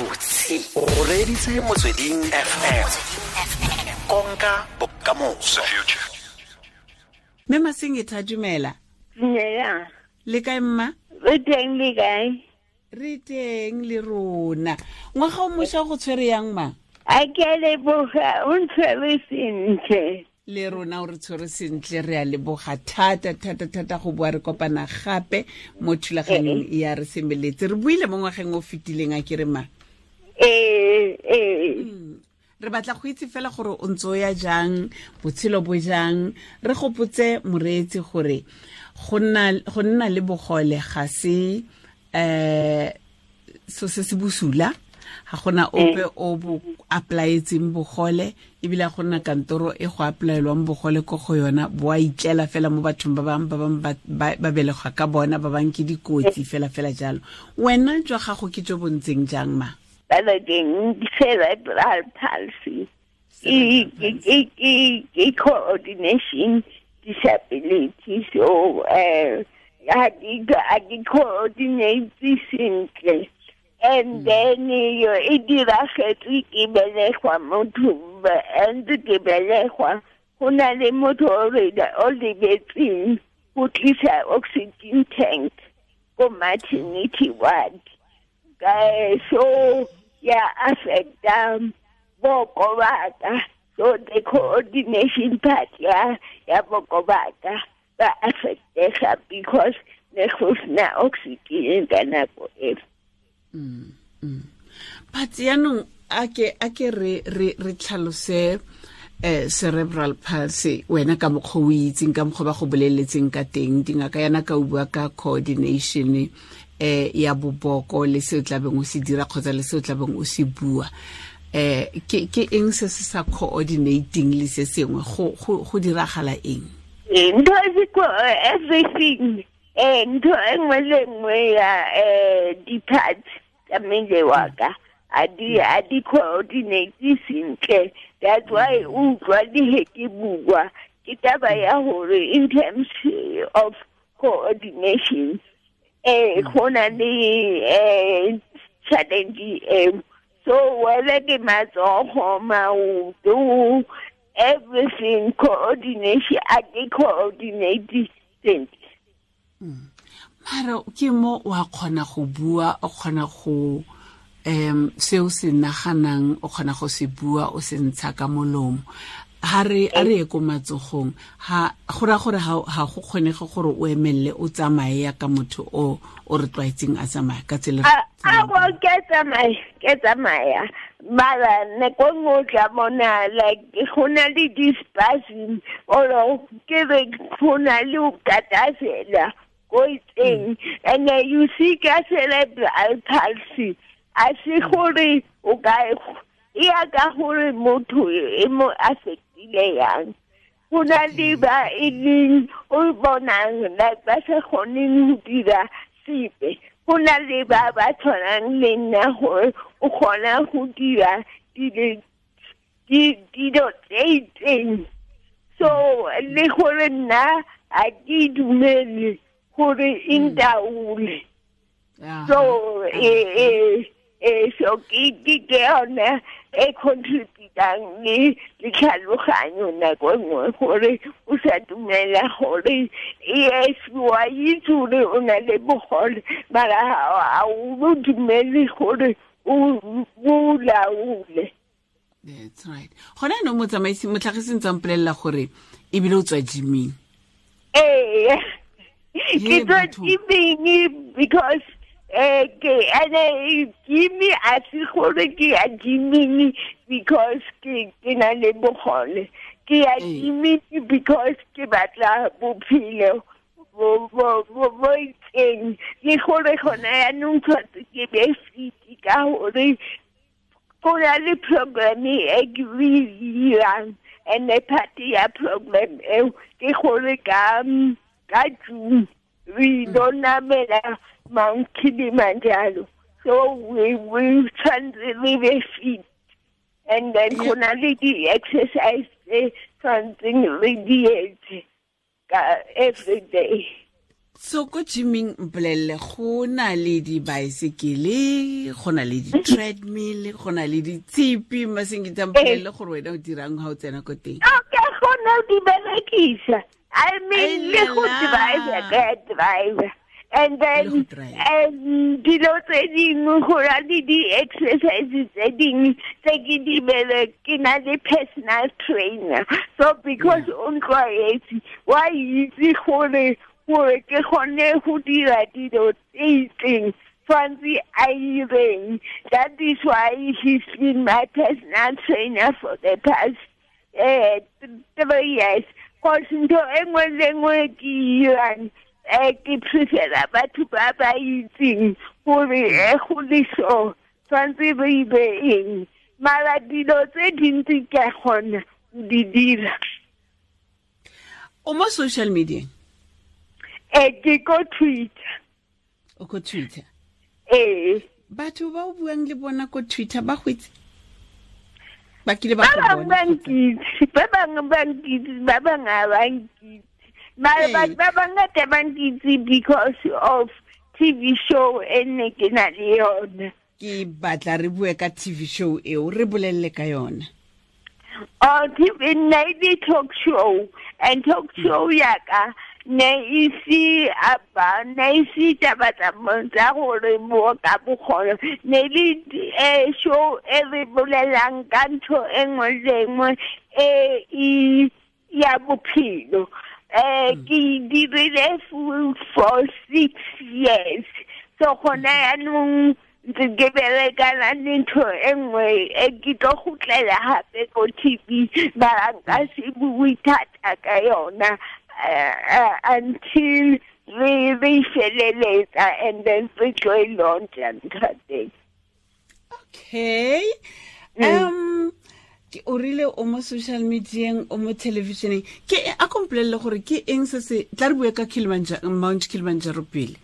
Gabotse o reeditse Motsweding FM, konka bokamoso. Mme Masengeta, dumela. Dumela. Le kae, mma? Re teng, le kae? Re teng le rona. Ngwaga o mošwa go tshwere yang, ma? A ke a leboga, o ntshwere sentle. Le rona o re tshwere sentle, re a leboga thata thata thata go boa re kopana gape mo thulaganyong ya Re Semeletse. Re buile mo ngwageng o fetileng, a ke re, ma? Ee. Re batla go itse fela gore o ntse o ya jang, botshelo bo jang. Re gopotse moreetsi gore go nna le bogole ga se so se se bosula, ga gona ope o bo applyetseng bogole, ebile ga gona kantoro e go applyelwang bogole ko go yona. Bo a itlela fela mo bathong ba bangwe, ba bangwe ba belegwa ka bona, ba bangwe ke dikotsi fela fela jalo. Wena jwa gago ke jo bo ntseng jang, ma? Balakeng cerebral palsy ke coordination disability, so ga ke coordinate sentle. And then yo e diragetse ke belegwa, motho ntse ke belegwa go na le motho o lebetseng go tlisa oxygen tank ko maternity ward, so ya affecta boko baka. So the coordination part ya boko baka ba affectega because ne go sena oxygen ka nako eo. But yaanong a ke re tlhalose cerebral palsy wena ka mokgwa o itseng, ka mokgwa ba go boleletseng ka teng dingaka yana, ka o bua ka coordination ya boboko le se o tlabeng o se dira kgotsa le se o tlabeng o se bua, ke eng se se sa coordinating le se sengwe? Go diragala eng? Ntho e everything, ntho e nngwe le nngwe ya di-parts tsa mmele wa ka a di coordinate sentle. That's why o utlwa le he ke bua, ke taba ya hore in terms of coordination go na le challenge eo. So whether ke matsogo, maoto, everything, coordination a ke coordinate sentle. Mara ke mo wa kgona go bua, o kgona go se o se naganang, o kgona go se bua, o se ntsha ka molomo. Ha re a re ye ko matsogong, ha go ra gore ha go kgonege gore o emelele, o tsamaye ya ka motho o re tlwaetseng a tsamaya ka tsela? A bo ke tsamaya, mara nako nngwe o tla bona like go na le di-spasm or ke re go na le o katasela ko itseng. And you see, ka cerebral palsy a se gore o ka e ya ka gore motho e mo affectile yang. Go na le ba e leng o bonang like ba sa kgoneng go dira sepe, go na le ba ba tshwanang le nna gore o kgona go dira dilo tse itseng. So le gore nna a ke dumele gore e ntaole. So so ke yone e contributang le tlhaloganyo nako e nngwe gore o sa dumela gore yes, wa itse gore o na le bogole, mara ga o dumele gore o laole. That's right. Gona no motsamaisi motlhagisi ntse mpolelela gore ebile o tswa gyming. Ee, ke tswa gyming because ke ene gym a se gore ke ya gyming because ke na le bogole. Ke ya gyming because ke batla bophelo bo itseng, le gore gona yaanong tshwanetse ke be fit ka gore go na le program e ke e dirang, and part ya program eo ke gore ka June re lo namela Mount Kilimanjaro, so we tshwanetse re be fit, and then go na le di-exercise tse tshwanetseng re di etse ka every day. So ko gyming mpolelele, go na le dibaesekele, go na le di-treadmill, go na le ditshipi. Masingita, mpolelele gore wena o dirang ga o tsena ko teng. Okay, go na di berekisa. I mean, le go drive, ke drive. And then dilo tse dingwe, go na le di-exercise tse dingwe tse ke di bere, ke na le personal trainer. So because o ntlwaetse, wa itse gore ke kgone go dira dilo tse itseng, tshwanetse a ireng. That is why he's been my personal trainer for the past 3 years. Cause ntho e nngwe le nngwe ke irang, ke prefera batho ba ba itseng gore go le so tshwanetse re ibe eng. Mara dilo tse dintsi ke a kgona go di dira. O mo social media? Ke ko Twitter. O ko Twitter? Ee. Batho ba o buang le bona ko Twitter ba go itse? Ba kile ba ba go bangwe bona ba kgotsa? Nkitse, ba bangwe ba nkitse, ba bangwe ga ba nkitse. Mara batho ba bangata ba nkitse because of TV show e nne ke na le yona. Ke batla re bue ka TV show eo, re bolelele ka yona. Oh, TV ne e talk show, and talk show yaka ne e se aba, ne e se taba tsa gore mo ka bogole, ne le show e re bolelang ka ntho e nngwe le nngwe e e ya bophelo. Ke dirile for 6 years, so gona yaanong ntse ke berekana le ntho e nngwe e ke tlo gotlela gape ko TV, mara nka se bue thata ka yona until re feleletsa and then re tlo e launcha ntho teng. Okay, ke o rile o mo social medieng, o mo televisioneng. Ke a kompolelele gore ke eng se se tla re bue ka Kilimanjaro, Mount Kilimanjaro pele.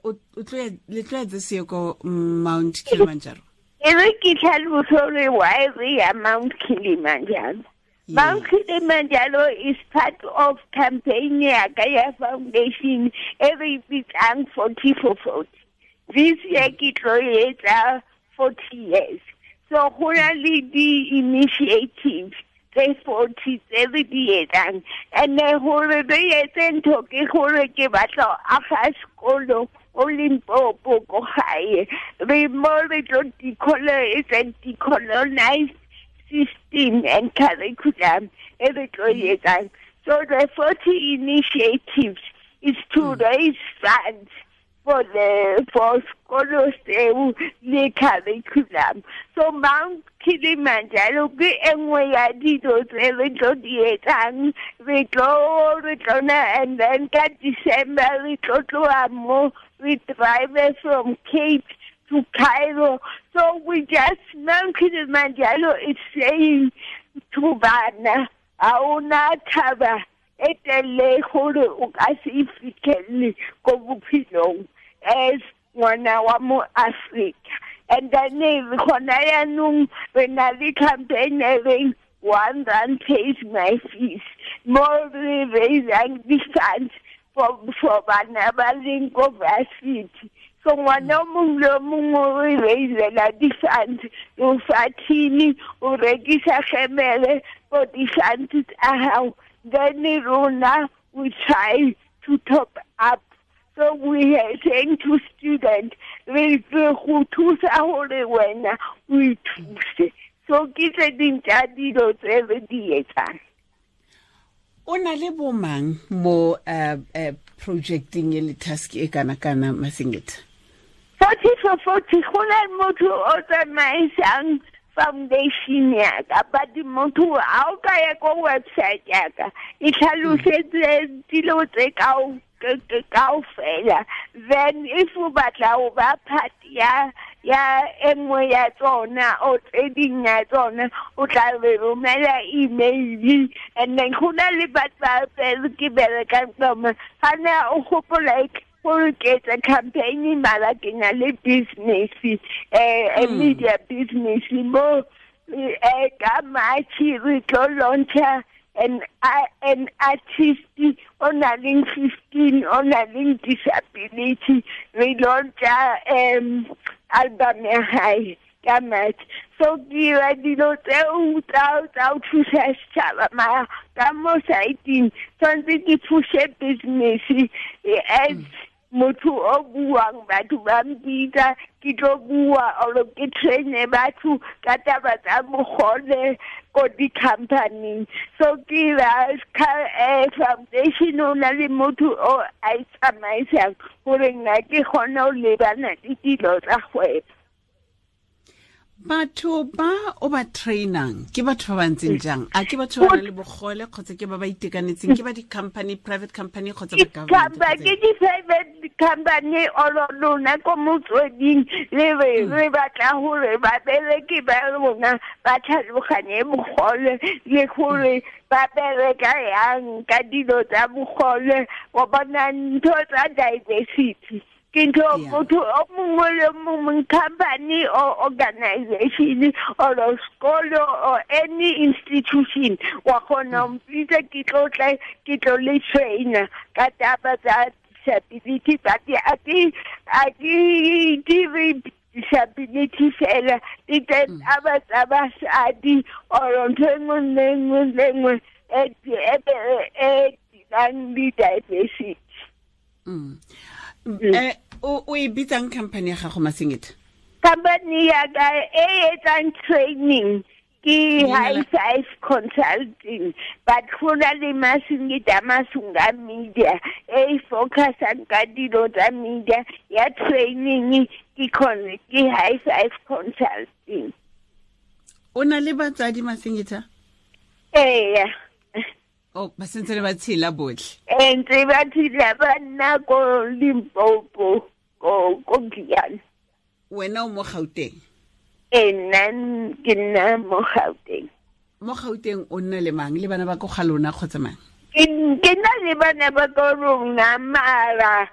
O tlo ya, le tlo ya this year ko Mount Kilimanjaro? E re ke tlhalose gore why re ya Mount Kilimanjaro. Mount Kilimanjaro is part of campaign ya ka ya foundation e re bitsang 40 for 40. This year ke tlo etsa 40 years. So go na le di-initiatives tse 40 tse re di etsang. And then gore re etse ntho ke gore ke batla ho aga sekolo ko Limpopo ko gae. Re mo re tlo it's a decolonized system and curriculum e re tlo e etsang. So the 40 initiatives is to raise funds for sekolo seo le curriculum. So Mount Kilimanjaro ke e nngwe ya dilo tse re tlo di etsang. Re tlo na, and then ka December re tlo tloha mo, we drive from Cape to Cairo. So we just, Mount Kilimanjaro is saying to bana, ha ona thaba e telele gore o ka se e fitlhele ko bophelong as ngwana wa mo Africa. And then gona yaanong re na le campaign e reng "R1 pays my fees", mo re raisang di-funds for bana ba leng ko varsity. So ngwana o mongwe le o mongwe o re raisela di-funds, o fa thini, o rekisa gemele for di-funds tsa hao, then rona we try to top up. So we are saying to students, re go thusa gore wena o ithuse. So ke tse ding tsa dilo tse re di etsang. O na le bomang mo projecting e le task e kana kana, Masingita? 40 for 40, go na le motho o tsamaisang foundation ya ka, but motho a o ka ya ko website ya ka, e tlhalosetse dilo tse kaofela. Then if o batla ho ba part ya e nngwe ya tsona o tse ding ya tsona, o tla re romela email. And then go na le batho ba ke berekang tsona ga ne o gopola gore ke etsa campaign, mara ke na le business, media business mo. Ka March re tlo launcha. an artist o na leng 15 o na leng disability, re launcha album ya hae ka March. So ke dira dilo tseo tsa ho thusa setjhaba, mara ka mo side-eng tshwanetse ke pushe business as motho o buang, batho ba mpitsa ke tlo bua or ke traine batho ka taba tsa bogole ko di-company. So ke ira foundation o na le motho o a e tsamaisang gore nna ke kgone ho lebana le dilo tsa kgwebo. Batho ba o ba trainang ke batho ba ba ntseng jang? A ke batho ba nang le bogole kgotsa ke ba ba itekanetseng? Ke ba di-company, private company kgotsa ba government? Ke di-private company or lona ko motsweding le re batla hore babereki ba rona ba tlhaloganye bogole le gore ba bereka yang ka dilo tsa bogole, wa bona ntho tsa diversity. Ke ntho motho o mongwe le mongwe, company or organization or a school or any institution wa kgona ho mpitsa ke tlo tla ke tlo le trainer ka taba tsa disability. But a ke dire disability fela, di taba tsa basadi or ntho e nngwe le nngwe le nngwe e dirang le diversity. O e bitsang company ya gago, Masingita? Company ya ka e etsang training ke High Five Consulting, but go na le Masingita Masunga Media e focusang ka dilo tsa media ya training ke High Five Consulting. O na le batsadi, Masingita? Ee. Oh, ba sentse le ba tshela botlhe? Ntse ba tshela, ba nna ko Limpopo, ko Giyani. Wena o mo Gauteng? Ee, nna ke nna mo Gauteng. Mo Gauteng o nna le mang? Le bana ba ko ga lona kgotsa mang? Ke nna le bana ba ko rona, mara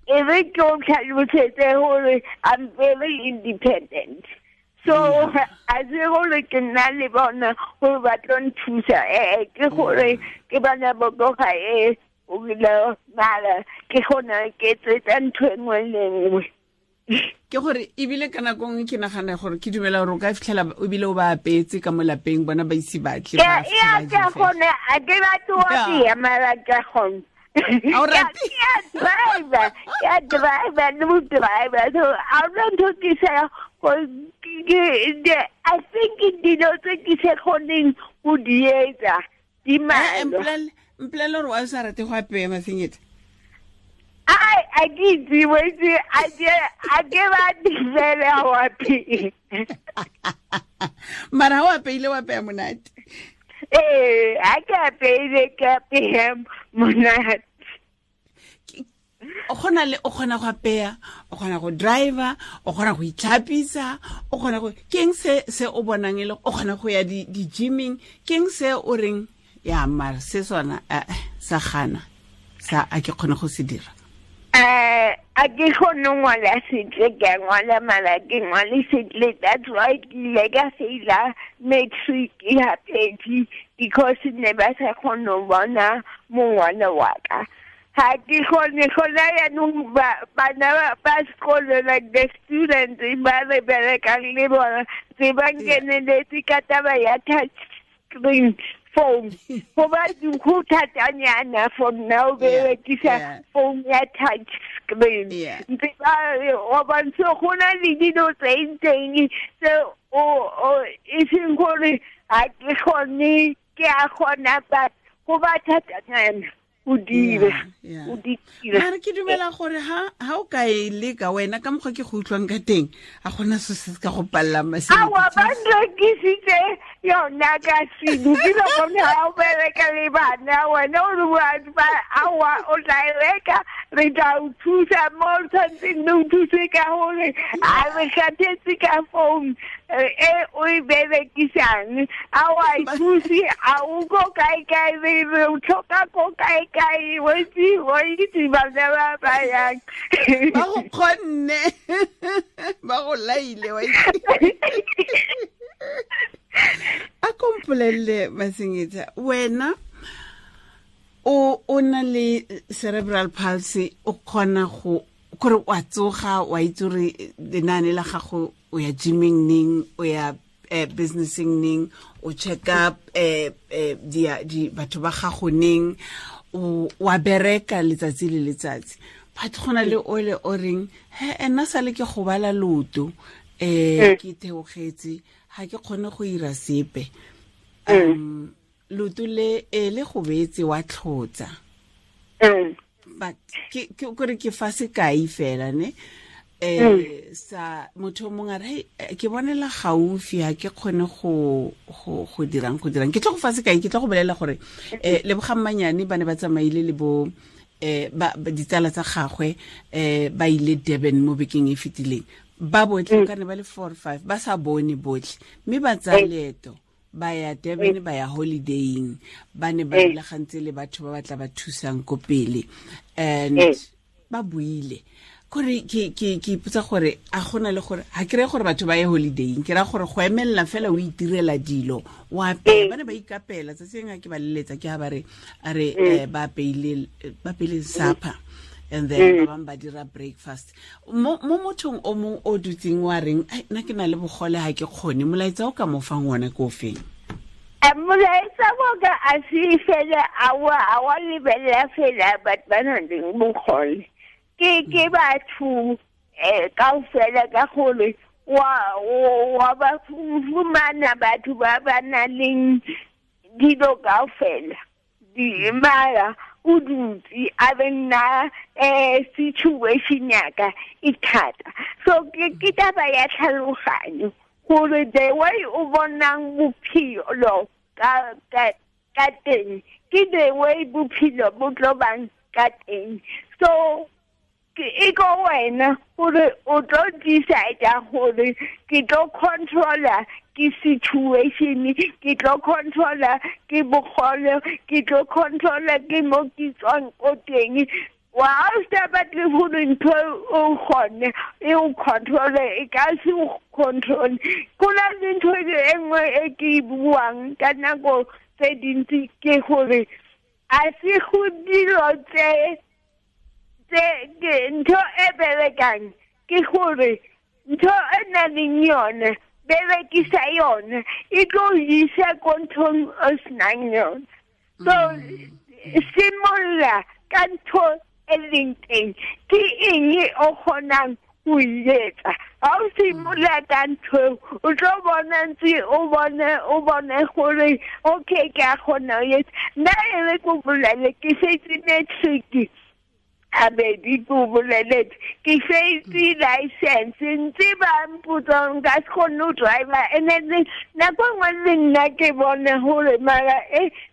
e re ke o tlhalosetse gore I'm very independent. So a se gore ke nna le bona gore ba tlo nthusa, ke gore ke bana ba ko gae o ile mara ke gona ke tsetsa ntho e nngwe le nngwe. Ke gore ebile ka nako nngwe ke nagana gore ke dumela gore o ka fitlhela ebile o ba apetse ka mo lapeng, bona ba ise batle. Ke gone a ke batle ho apeya, mara ke gone. Ke a driver le mo driver, so a hona ntho ke sa I think dilo tse ke sa kgoneng ho di etsa di mmalwa. Mpolelle gore wa o sa rate go apeya, Masingita? A ke itse, a ke batle fela ho apeya. Mara ha o apeile o apeya monate? Ee, ha ke apeile ke apeya monate. O kgona go apeya, o kgona go driver, o kgona go itlhapisa, o kgona go keng se o bonang e le o kgona go ya di-gymming, keng se o reng ya mara se sona sa gana sa a ke kgone go se dira? A ke kgone ho ngwala sentle, ke a ngwala mara ke ngwale sentle. That's why ke ile ka faila matric ya pedi because ne ba sa kgone ho bona mongwalo wa ka. Ha ke kgone gona yaanong bana ba sekolo, like the students ba re berekang le bona tse ba nkeneletse ka taba ya touch screen phone. Go ba go thatanyana for nna o berekisa phone ya touch screen. Ntse ba wa bontsha go na le dilo tse itseng tse o e seng gore ha ke kgone, ke a kgona but go ba thatanyana o dira. Mara ke dumela gore ha o ka e leka wena ka mokgwa ke go utlwang ka teng, a gona se se ka go pallang, Masingita. Aowa, ba nrekisitse yona ka selo. Ke lo bone ha o bereka le bana, wena o re aowa o tla e reka, re tla o thusa mo o tshwanetseng re o thuse ka gore a re kgathetse ka phone e o e berekisang, a wa e thuse, a o ko kae kae, re o tlhoka ko kae kae, wa itse bana ba ba yang. Ba go kgonne, ba go laile, wa itse. A ko mpolelele, Masingita, wena o na le cerebral palsy, o kgona go kore wa tsoga, wa itse gore lenaane la gago, o ya gymming neng, o ya businessing neng, o check up di batho ba gago neng, o wa bereka letsatsi le letsatsi. But go na le ole o reng, he ena sale ke gobala loto, ke theogetse, ga ke kgone go ira sepe. Loto le le gobetse wa tlhotsa. But ke kore ke fa sekai fela ne. Sa motho mongwe a re, ke bonela gaufi, ha ke kgone go dirang. Ke tlo go fa sekai, ke tlo go bolela gore Lebogang Manyane ba ne ba tsamaile le bo ba ditsala tsa gagwe, ba ile Durban mo bekeng e fetileng. Ba botlhe ka ne ba le 4 or 5 ba sa bone botlhe, mme ba tsaya leeto ba ya Durban, ba ya holidaying, ba ne ba rulagantse le batho ba batla ba thusang ko pele, and ba buile. Kore ke ipotsa gore a gona le gore ha ke re gore batho ba ye holidaying, ke ra gore go emelela fela o itirela dilo, o apela, ba ne ba ikapela. Tsatsi lengwe ke ba leletsa, ke ha ba re a re ba apeile supper, and then ba bang ba dira breakfast. Mo mothong o mong o dutseng wa reng, ai nna ke na le bogole, ha ke kgone, molaetsa o ka mo fang ona ke o feng? Molaetsa wa ka a se fela a wa lebelela fela batho ba nang le bogole. Ke batho kaofela, ka gore wa ba fumana batho ba ba nang le dilo kaofela. Mara o dutse a be nna situation ya ka e thata. So ke taba ya tlhaloganyo gore the way o bonang bophelo ka teng ke the way bophelo bo tlo bang ka teng. So ke e ko wena gore o tlo decide gore ke tlo controller ke situation, ke tlo controller ke bogole, ke tlo controller ke mo ke tswang ko teng. Wa o sa batle gore ntho o kgone e o controle, e ka se o control. Go na le ntho e nngwe e ke e buang ka nako tse dintsi, ke gore a se go dilo tse ntho e berekang, ke gore ntho e nang le yone berekisa yone, e tlo isa ko nthong o senang yone. So simolola ka ntho e leng teng, ke eng o kgonang go e etsa. Ha o simolola ka ntho, o tlo bona ntse o bone gore okay, ke a kgona ho etsa. Nna e re ko bolele, ke setse matric abedi ko boleletse, ke setse license, ntse ba mpotsa nka se kgone ho driver. And then nako nngwe le nna ke bone gore mara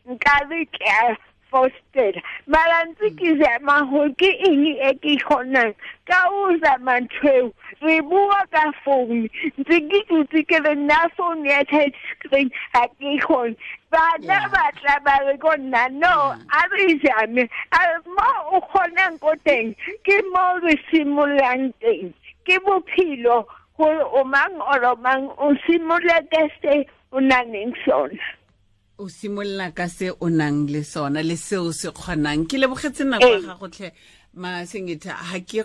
nkabe ke a fostela, mara ntse ke zama gore ke eng e ke kgonang ka o zama ntho eo. Re bua ka phone, ntse ke dutse ke re nna phone ya touch screen ha ke kgone. Bana ba tla ba re ko nna, no, a re zame mo o kgonang ko teng, ke mo re simololang teng. Ke bophelo gore o mang or o mang o simolola ka se o nang le sona. O simolola ka se o nang le sona le seo se kgonang. Ke lebogetse nako ya gago tlhe, Masingita. Ha ke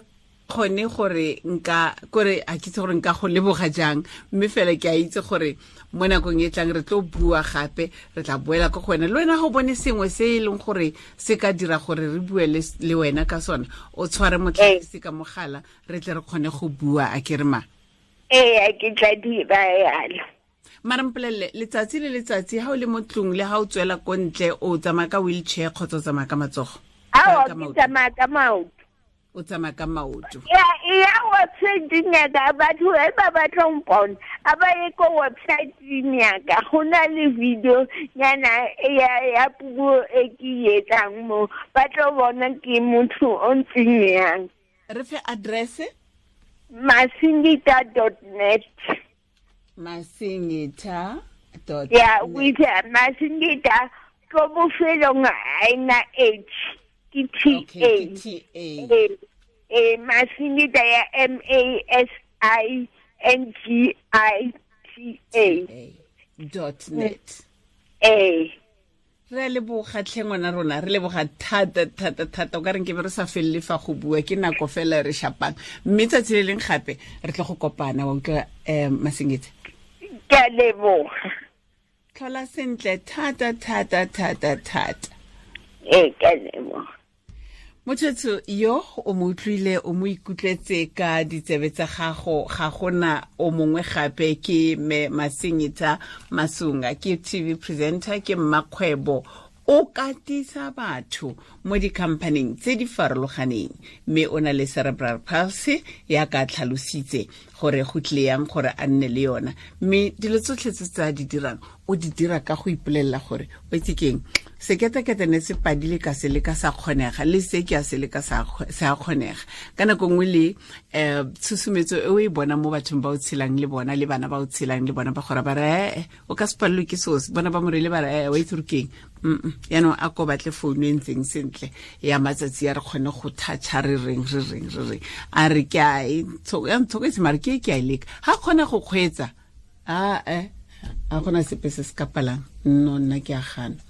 kgone gore nka kore a ke itse gore nka go leboga jang, mme fela ke a itse gore mo nakong e tlang re tlo bua gape, re tla boela ko go wena. Le wena go bone sengwe se e leng gore se ka dira gore re bue le wena ka sona, o tshware motlhagisi ka mogala, re tle re kgone go bua. A ke re ma? Ee, ke tla dira yalo. Mara mpolelele, letsatsi le letsatsi ha o le mo tlung le ha o tswela ko ntle, o tsamaya ka wheelchair kgotsa o tsamaya ka matsogo? Ao, ke tsamaya ka maoto. O tsamaya ka maoto. Ya website ya ka, batho ba batla ho mpona, a ba ye ko website ya ka, go na le video nyana ya puo e ke etsang mo, ba tlo bona ke motho o ntseng yang. Re fe address? Masingita.net. Masingita dot Yeah, with Masingita ko bofelong a ena H ke T A. T A. Masingita ya M A S I N G I T A dot net. Ee. Re a leboga tlhe ngwana rona, re leboga thata thata thata. O ka reng ke be re sa felele fa go bua, ke nako fela re shapang, mme tsatsi le leng gape re tle go kopana. Wa utlwa, Masengetse? Ke a leboga. Tlhola sentle thata thata thata thata. Ee, ke a leboga. Motho yo o mo utlwile, o mo ikutlwetse ka ditsebe tsa gago, ga gona o mongwe gape ke me Masengeta Masunga, ke TV presenter, ke mmakgwebo, o katisa batho mo di-companyng tse di farologaneng, mme o na le cerebral palsy ya ka tlhalositse gore go tlile yang gore a nne le yona. Mme dilo tsotlhe tse tsa di dirang o di dira ka go ipolelela gore o itse keng, seketekete ne se padile ka se le ka sa kgonega, le se ke a se le ka sa kgonega. Ka nako nngwe le tshusumetso e o e bona mo bathong ba o tshelang le bona, le bana ba o tshelang le bona, ba gore ba re o ka se palelwe ke seo, bona ba morele ba re wa itse gore keng. Yaanong a ko batle founu e ntseng sentle ya matsatsi a re kgone go toucha, re reng re reng re reng, a re ke a e ya ntshoketse, mare ke ke a e leka, ga kgona go kgweetsa a gona sepe se se ka palang. No, nna ke a gana.